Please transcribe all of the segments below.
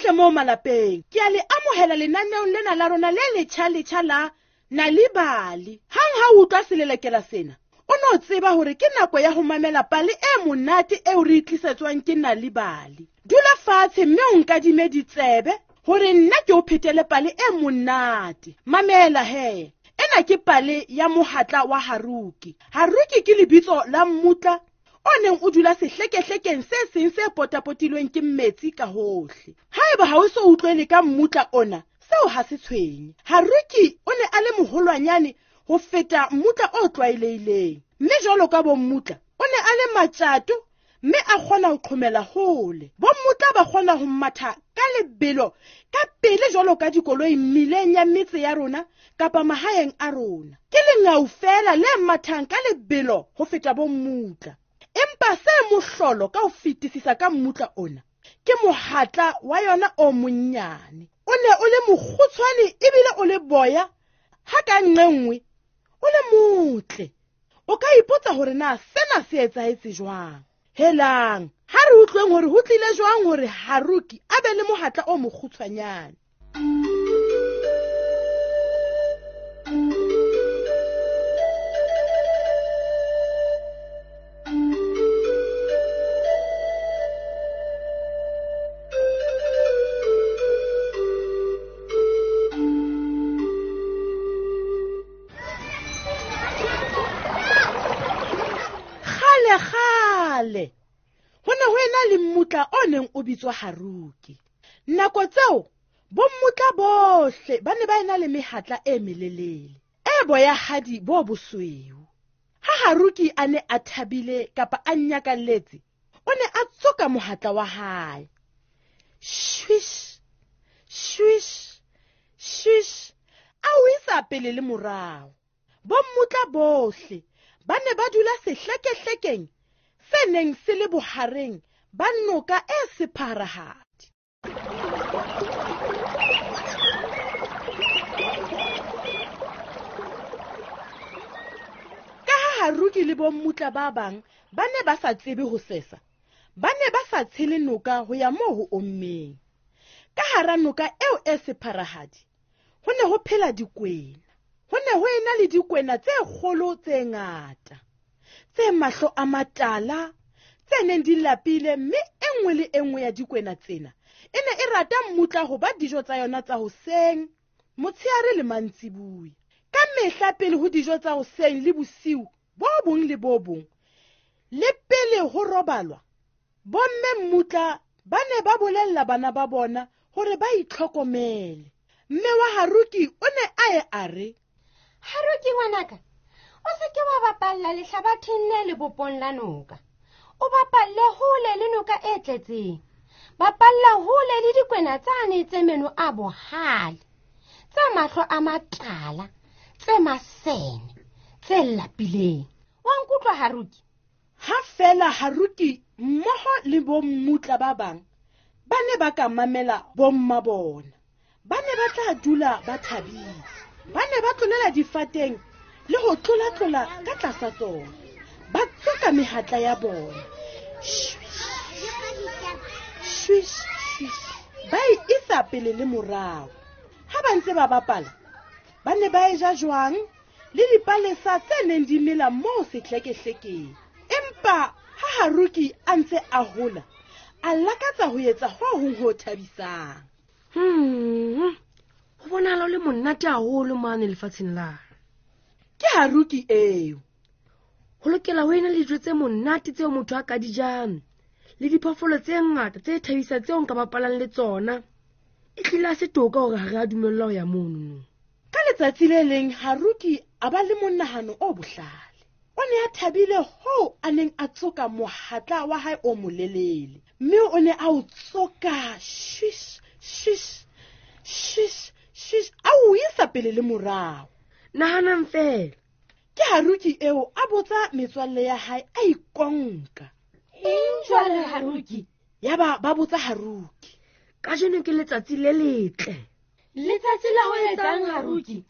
Bohle moo malapeng, ke a le amohela lenaneong lena la rona le letjha-letjha la Nal'ibali. Hang ha o utlwa selelekela sena, o no tseba hore ke nako ya ho mamela pale e monate eo re e tlisetswang ke Nal'ibali. Dula fatshe mme o nkadime ditsebe hore nna ke o phetele pale e monate. Mamela he. Ena ke pale ya mohatla wa Haruki. Haruki ke lebitso la mmutla o neng o dula sehlekehlekeng se seng se potapotilweng ke metsi ka hohle. Haeba ha o so utlwele ka mmutla ona, seo ha se tshwenye. Haruki o ne a le moholwanyane ho feta mmutla o tlwaelehileng, mme jwalo ka bommutla, o ne a le matjato mme a kgona ho qhomela hole. Bommutla ba kgona ho matha ka lebelo ka pele jwalo ka dikoloi mmileng ya metse ya rona kapa mahaeng a rona. Ke lengau feela le mathang ka lebelo ho feta bommutla. Empa se mohlolo ka ho fetisisa ka mmutla ona ke mohatla wa yona o monnyane. O ne o le mokgutshwane ebile o le boya, ha ka nqe nngwe o le motle. O ka ipotsa hore na sena se etsahetse jwang. Helang, ha re utlweng hore ho tlile jwang hore Haruki a be le mohatla o mokgutshwanyane. Kgale ho ne ho ena le mmutla o neng o bitswa Haruki. Nako tseo bommutla bohle ba ne ba ena le mehatla e melelele e boyahadi bo bosweu. Ha Haruki a ne a thabile kapa a nyakalletse, o ne a tsoka mohatla wa hae. Swish, swish, swish, a o isa pele le morao. Bommutla bohle ba ne ba dula sehlekehlekeng se neng se le bohareng ba noka e sepharahadi. Ka ha Haruki le bommutla ba bang ba ne ba sa tsebe ho sesa, ba ne ba sa tshele noka ho ya moo ho ommeng. Ka hara noka eo e sepharahadi ho ne ho phela dikwena. Ho ne ho ena le dikwena tse kgolo tse ngata, tse mahlo a matala, tse neng di lapile, mme e nngwe le e nngwe ya dikwena tsena e ne e rata mmutla ho ba dijo tsa yona tsa hoseng, motshehare le mantsibuya. Ka mehla pele ho dijo tsa hoseng le bosiu bo bong le bo bong, le pele ho robalwa, bomme mmutla ba ne ba bolella bana ba bona hore ba itlhokomele. Mme wa Haruki o ne a ye a re, Haruki ngwanaka, o se ke wa bapalla lehlabatheng le lebopong la noka. O bapalle hole le noka e tletseng. Bapalla hole le dikwena tsane tse meno a bohale, tse mahlo a matala, tse masene, tse lapileng. Wa nkutlwa Haruki? Ha fela Haruki mmoho le bommutla ba bang ba ne ba ka mamela bomma bona, ba ne ba tla dula ba thabile. Ba ne ba tlolela difateng le ho tlolatlola ka tlasa tsona, ba tsoka mehatla ya bona. Swish, swish, ba e isa pele le morao. Ha ba ntse ba bapala, ba ne ba e ja jwang le dipalesa tse neng di mela moo sehlekehlekeng. Empa ha Haruki a ntse a hola, a lakatsa ho etsa ho hong ho thabisang. Ho bonahala o le monate haholo mane lefatsheng la. Ke Haruki eo. Ho lokela ho ena le dijo tse monate tseo motho a ka di jang, le diphoofolo tse ngata tse thabisang tseo nka bapalang le tsona. E hlile ha se toka hore ha re a dumellwa ho ya mono. Ka letsatsi le leng Haruki a ba le monahano o bohlale. O ne a thabile hoo a neng a tsoka mohatla wa hae o molelele, mme o ne a o tsoka swish, swish, swish, swish, a o isa pele le morao. Nahanang fela. Ke Haruki eo a botsa metswalle ya hae a ikonka. Eng jwale Haruki? Yaba ba botsa Haruki. Kajeno ke letsatsi le letle. Letsatsi la ho etsang Haruki?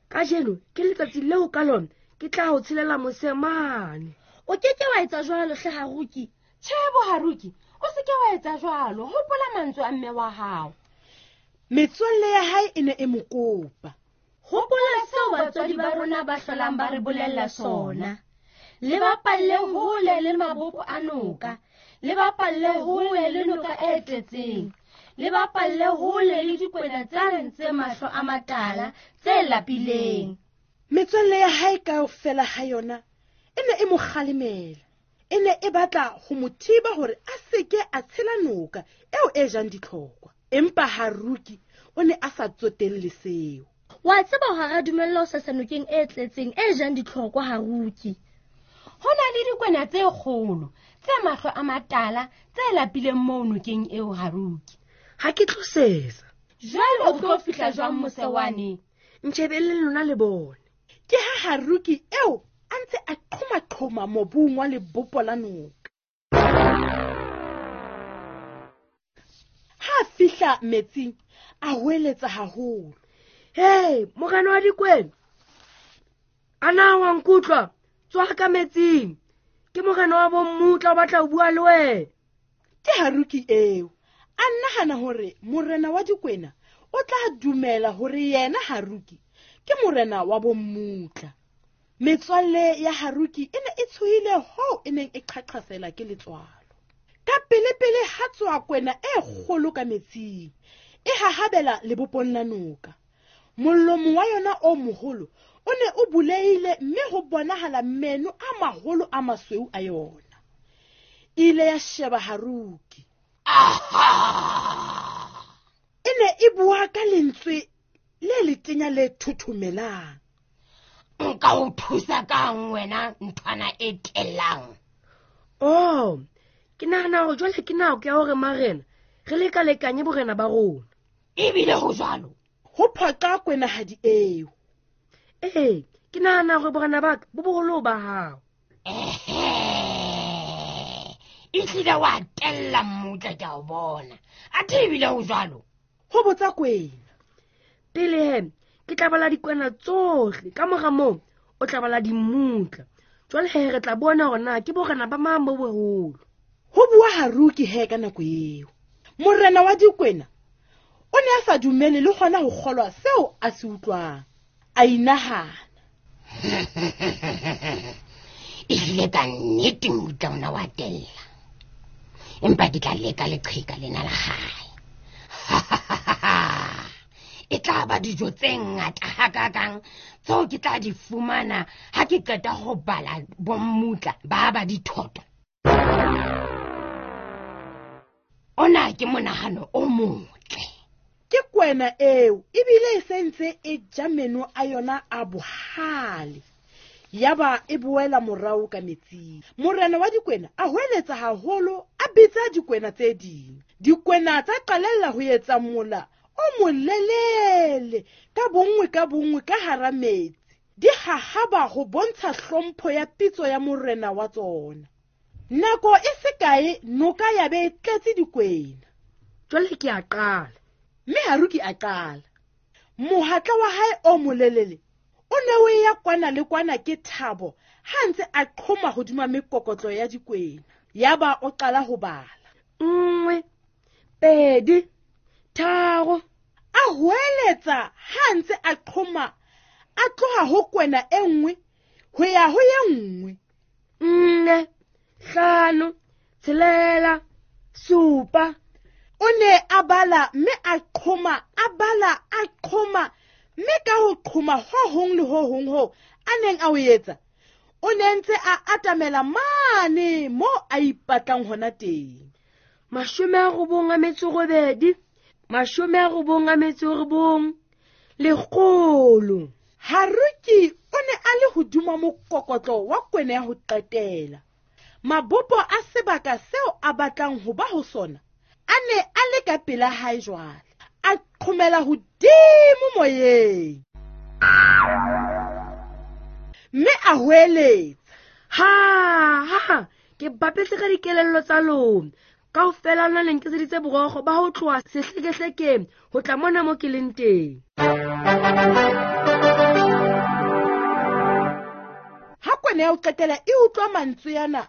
Kajeno ke letsatsi leo ka lona ke tla ho tshelela mose mane. O ke ke wa etsa jwalo hle Haruki. Tjhe bo Haruki, o se ke wa etsa jwalo, hopola mantswe a mme wa hao. Metswalle ya hae e ne e mo kopa. Hopola seo batswadi ba rona ba hlolang ba re bolella sona. Le bapalle hole le mabopo a noka, le bapalle hole le noka e tletseng, le bapalle hole le dikwena tsane tse mahlo a matala tse lapileng. Metswalle ya hae kaofela ha yona e ne e mo kgalemela. E ne e batla ho mo thiba hore a seke a tshela noka eo e jang ditlhokwa. Empa Haruki o ne a sa tsotelle seo. Wa tseba hore ha dumella ho sesa nokeng e tletseng e jang ditlhokwa, Haruki. Ho na le dikwena tse kgolo tse mahlo a matala tse lapileng moo nokeng eo, Haruki. Ha ke tlo sesa. Jwale o tlo fihla jwang mose wane? Ntjhebelleng lona le bone. Ke ha Haruki eo a ntse a qhoma-qhoma mobung wa lebopo la noka. Ha a fihla metsing, a hweletsa haholo. Hei, morena wa dikwena, a na wa nkutlwa? Tswa ka metsing. Ke morena wa bommutla o batla ho bua le wena. Ke Haruki eo. A nahana hore morena wa dikwena o tla dumela hore yena Haruki ke morena wa bommutla. Metswalle ya Haruki e ne e tshohile hoo e neng e qhaqhasela ke letswalo. Ka pele-pele ha tswa kwena e kgolo ka metsing, e hahabela lebopong la noka. Molomo wa yona o moholo o ne o bulehile mme ho bonahala meno a maholo a masweu a yona. E ile ya sheba Haruki. E ne e bua ka lentswe le letenya le thothomelang. Nka o thusa kang wena nthwana e tellang? Oh, ke nahana hore jwale ke nako ya hore marena re lekalekanye borena ba rona. Ebile ho jwalo. Ho phoqa kwenahadi eo. Ee, ke nahana hore borena ba ka bo boholo ba hao. Ehlile wa tella mmutla ke a o bona. Athe ebile ho jwalo. Ho botsa kwena. Pele he, ke tla bala dikwena tsohle, ka mora moo o tla bala dimmutla. Jwale he re tla bona hore na ke borena ba mang bo boholo. Ho bua Haruki he ka nako eo. Morena wa dikwena o ne a sa dumele le hona ho kgolwa seo a se utlwang. A inahana. Ehlile ka nnete mmutla ona wa tella. Empa ke tla leka leqheka lena la hae. E tla ba dijo tse ngata hakakang tseo ke tla di fumana ha ke qeta ho bala bommutla ba ba dithoto. Ona ke monahano o motle. Ke kwena eo ebile e sentse e ja meno a yona a bohale. Yaba e boela morao ka metsing. Morena wa dikwena a hweletsa haholo, a bitsa dikwena tse ding. Dikwena tsa qalella ho etsa mola o molelele ka bonngwe ka hara metsi. Di hahaba ho bontsha hlompho ya pitso ya morena wa tsona. Nako e se kae noka ya be e tletse dikwena. Jwale ke a qala. Mme Haruki a qala. Mohatla wa hae o molelele o ne o ya kwana le kwana ke thabo ha ntse a qhoma hodima mekokotlo ya dikwena. Yaba o qala ho bala. 1, 2, 3. A hweletsa ha ntse a qhoma a tloha ho kwena e nngwe ho ya ho ye nngwe. 4, 5, 6, 7. O ne a bala mme a qhoma, a bala, a qhoma, mme ka ho qhoma ho hong le ho hong ho a neng a o etsa, o ne ntse a atamela mane mo a ipatlang hona teng. 98, 99, 100. Haruki o ne a le hodima mokokotlo wa kwena ya ho qetela. Mabopo a sebaka seo a batlang ho ba ho sona a ne a le ka pela hae jwale. A qhomela hodimo moyeng. Mme a hweletsa. Ha, ha, ke bapetse ka dikelello tsa lona. Kaofela lona le nkeseditse borokgo ba ho tloha sehlekehlekeng ho tla mona mo ke leng teng. Ha kwena ya ho qetela e utlwa mantswe ana,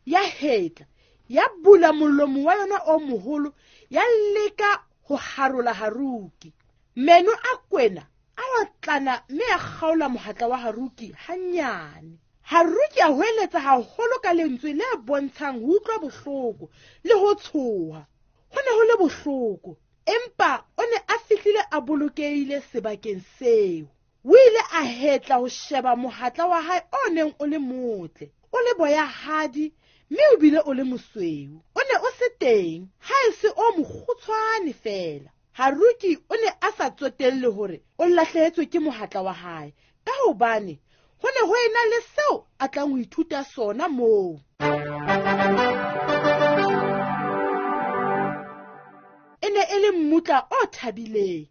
ya hetla, Ya bula molomo wa yona o moholo, ya leka ho harola Haruki. Meno a kwena a otlana mme a kgaola mohatla wa Haruki hanyane. Haruki a hweletsa haholo ka lentswe le bontshang ho utlwa bohloko le ho tshoha. Ho ne ho le bohloko, empa o ne a fihlile a bolokehile sebakeng seo. O ile a hetla ho sheba mohatla wa hae o neng o le motle, o le boyahadi mme o bile o le mosweu. O ne o se teng, ha e se o mokgutshwane feela. Haruki o ne a sa tsotelle hore o lahlehetswe ke mohatla wa hae, ka hobane ho ne ho ena le seo a tlang ho ithuta sona moo. E ne e le mmutla o thabileng.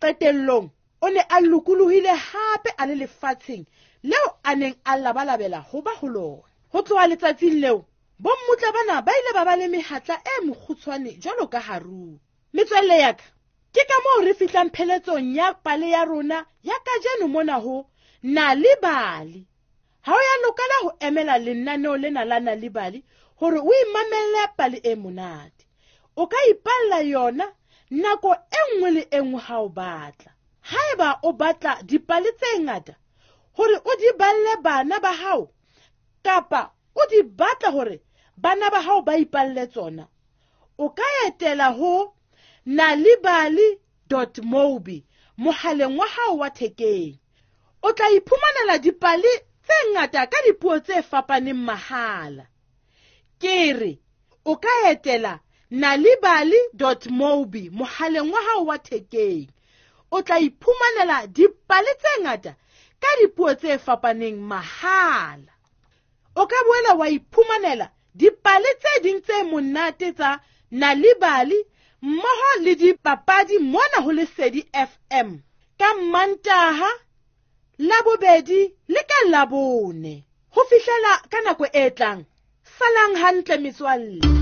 Qetellong o ne a lokolohile hape a le lefatsheng leo a neng a labalabela ho ba ho lona. Ho tloha letsatsing leo, bommutla bana ba ile ba ba le mehatla e mokgutshwane jwalo ka Haruki. Metswalle ya ka, ke ka moo re fihlang pheletsong ya pale ya rona ya kajeno mona ho Nal'ibali. Ha o ya lokela ho emela lenaneo lena la Nal'ibali hore o imamelle pale e monate. O ka ipalla yona nako e nngwe le e nngwe ha o batla. Haeba o batla dipale tse ngata hore o di balle bana ba hao, kapa o di batla hore bana ba hao ba ipalle tsona, o ka etela ho nalibali.mobi mohaleng wa hao wa thekeng. O tla iphumanela dipale tse ngata ka dipuo tse fapaneng mahala. Ke re o ka etela nalibali.mobi mohaleng wa hao wa thekeng. O tla iphumanela dipale tse ngata ka dipuo tse fapaneng mahala. O ka boela wa iphumanela dipale tse ding tse monate tsa Nal'ibali mmoho le dipapadi mona ho Lesedi FM ka Mantaha, Labobedi le ka Labone. Ho fihlela ka nako e tlang, salang hantle metswalle.